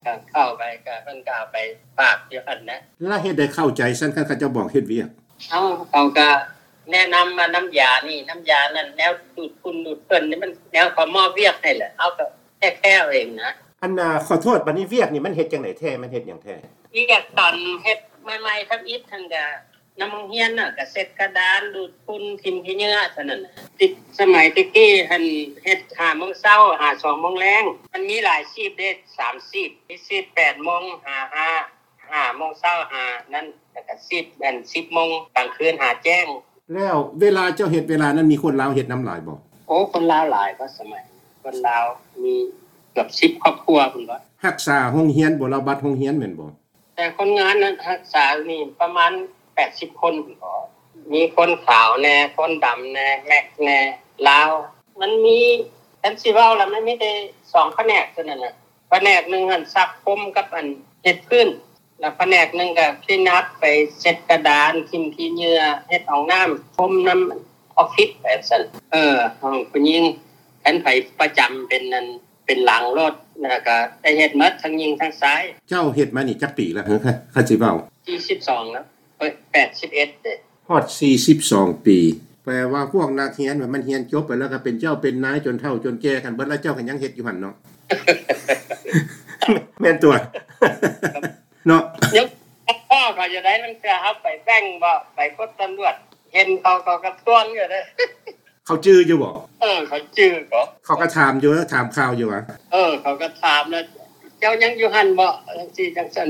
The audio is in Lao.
ກໍເຂົ້າໄປ ກໍເພິ່ນກໍເອົາໄປຝາກຢູ່ຫັ້ນນະ. ແລ້ວເຮັດໃດເຂົ້າໃຈຊັ້ນ ຄັນເຂົາເຈົ້າບອກເຮັດວຽກ? ເອົາ ເຂົາກໍແນະນຳວ່ານ້ຳຢານີ້ ນ້ຳຢານັ້ນ ແນວດູດຝຸ່ນດູດເພິ່ນນີ້ ມັນແນວເຂົາມອບວຽກໃຫ້ແຫຼະ ເຮົາກໍແຄ່ເອົາເອງນະ. ອັນນ່າ ຂໍໂທດ ບັດນີ້ວຽກນີ້ມັນເຮັດຈັ່ງໃດແທ້? ມັນເຮັດຫຍັງແທ້? ວຽກຕອນເຮັດໃໝ່ໆ ທຳອິດຫັ້ນກໍ ນຳໂຮງຮຽນນະ ກະເຊັດກະດານ ດູດຝຸ່ນ ຖິ້ມຂີ້ເຫຍື້ອ ເທົ່ານັ້ນ. ຕິດສະໄໝແຕ່ກີ້ຫັ້ນ ເຮັດຫ້າໂມງເຊົ້າ ຫາສອງໂມງແລງ. ມັນມີຫຼາຍຊີບເດ້ ສາມຊີບ ມີຊີບແປດໂມງ ຫາຫ້າ ຫ້າໂມງເຊົ້າ ຫານັ້ນ ແລ້ວກະຊີບອັນສິບໂມງ ກາງຄືນ ຫາແຈ້ງ. ແລ້ວເວລາເຈົ້າເຮັດ ເວລານັ້ນມີຄົນລາວເຮັດນຳຫຼາຍບໍ່? ໂອ້ ຄົນລາວຫຼາຍເນາະ ສະໄໝ ຄົນລາວມີເກືອບສິບຄອບຄົວພຸ້ນເນາະ. ຮັກສາໂຮງຮຽນບໍ່? ລາວບັດໂຮງຮຽນແມ່ນບໍ່? ແຕ່ຄົນງານນັ້ນຮັກສານີ້ປະມານແປດສິບຄົນພຸ້ນເນາະ ມີຄົນຂາວແດ່ ຄົນດຳແດ່ ແມັກແດ່ ລາວ. ມັນມີ ຄັນຊິເວົ້າລະ ມັນມີແຕ່ສອງພະແນກເທົ່ານັ້ນນະ. ພະແນກໜຶ່ງຫັ້ນຊັກພົມກັບອັນເຮັດພື້ນ ແລ້ວພະແນກໜຶ່ງກໍ clean up ໄປເຊັດກະດານ ຖິ້ມຂີ້ເຫຍື້ອ ເຮັດຫ້ອງນ້ຳ ພົມນຳອອບຟິດ ໄປຊັ້ນ. ເອີ ຫ້ອງຜູ້ຍິງ ຄັນໃຜປະຈຳເປັນອັນ ເປັນຫຼັງໂລດ ແລ້ວກໍໄດ້ເຮັດໝົດ ທັງຍິງທັງຊາຍ. ເຈົ້າເຮັດມານີ້ຈັກປີແລ້ວ ຄັນຊິເວົ້າ? ສີ່ສິບສອງແລ້ວ ເອີຍ ແປດສິບເອັດເດ້. ຮອດສີ່ສິບສອງປີ ແປວ່າພວກນັກຮຽນມັນຮຽນຈົບໄປແລ້ວກໍເປັນເຈົ້າເປັນນາຍຈົນເຖົ້າຈົນແກ່ກັນເບິດແລ້ວ ເຈົ້າກໍຍັງເຮັດຢູ່ຫັ້ນເນາະ. ແມ່ນຕົວະ ເນາະ. ຍັງພໍເຂົາຈະໄດ້ ລາງເທື່ອເຮົາໄປແບັງບໍ ໄປກົດຕຳຫຼວດ ເຫັນເຂົາ ເຂົາກໍທວງຢູ່ເດ້. ເຂົາຈື່ຢູ່ບໍ່? ເອີ ເຂົາຈື່ບໍ? ເຂົາກໍຖາມຢູ່ ຖາມຂ່າວຢູ່ຫວາ? ເອີ ເຂົາກໍຖາມແລ້ວ ເຈົ້າຍັງຢູ່ຫັ້ນບໍ? ຈັ່ງຊີ້ຈັ່ງຊັ້ນ.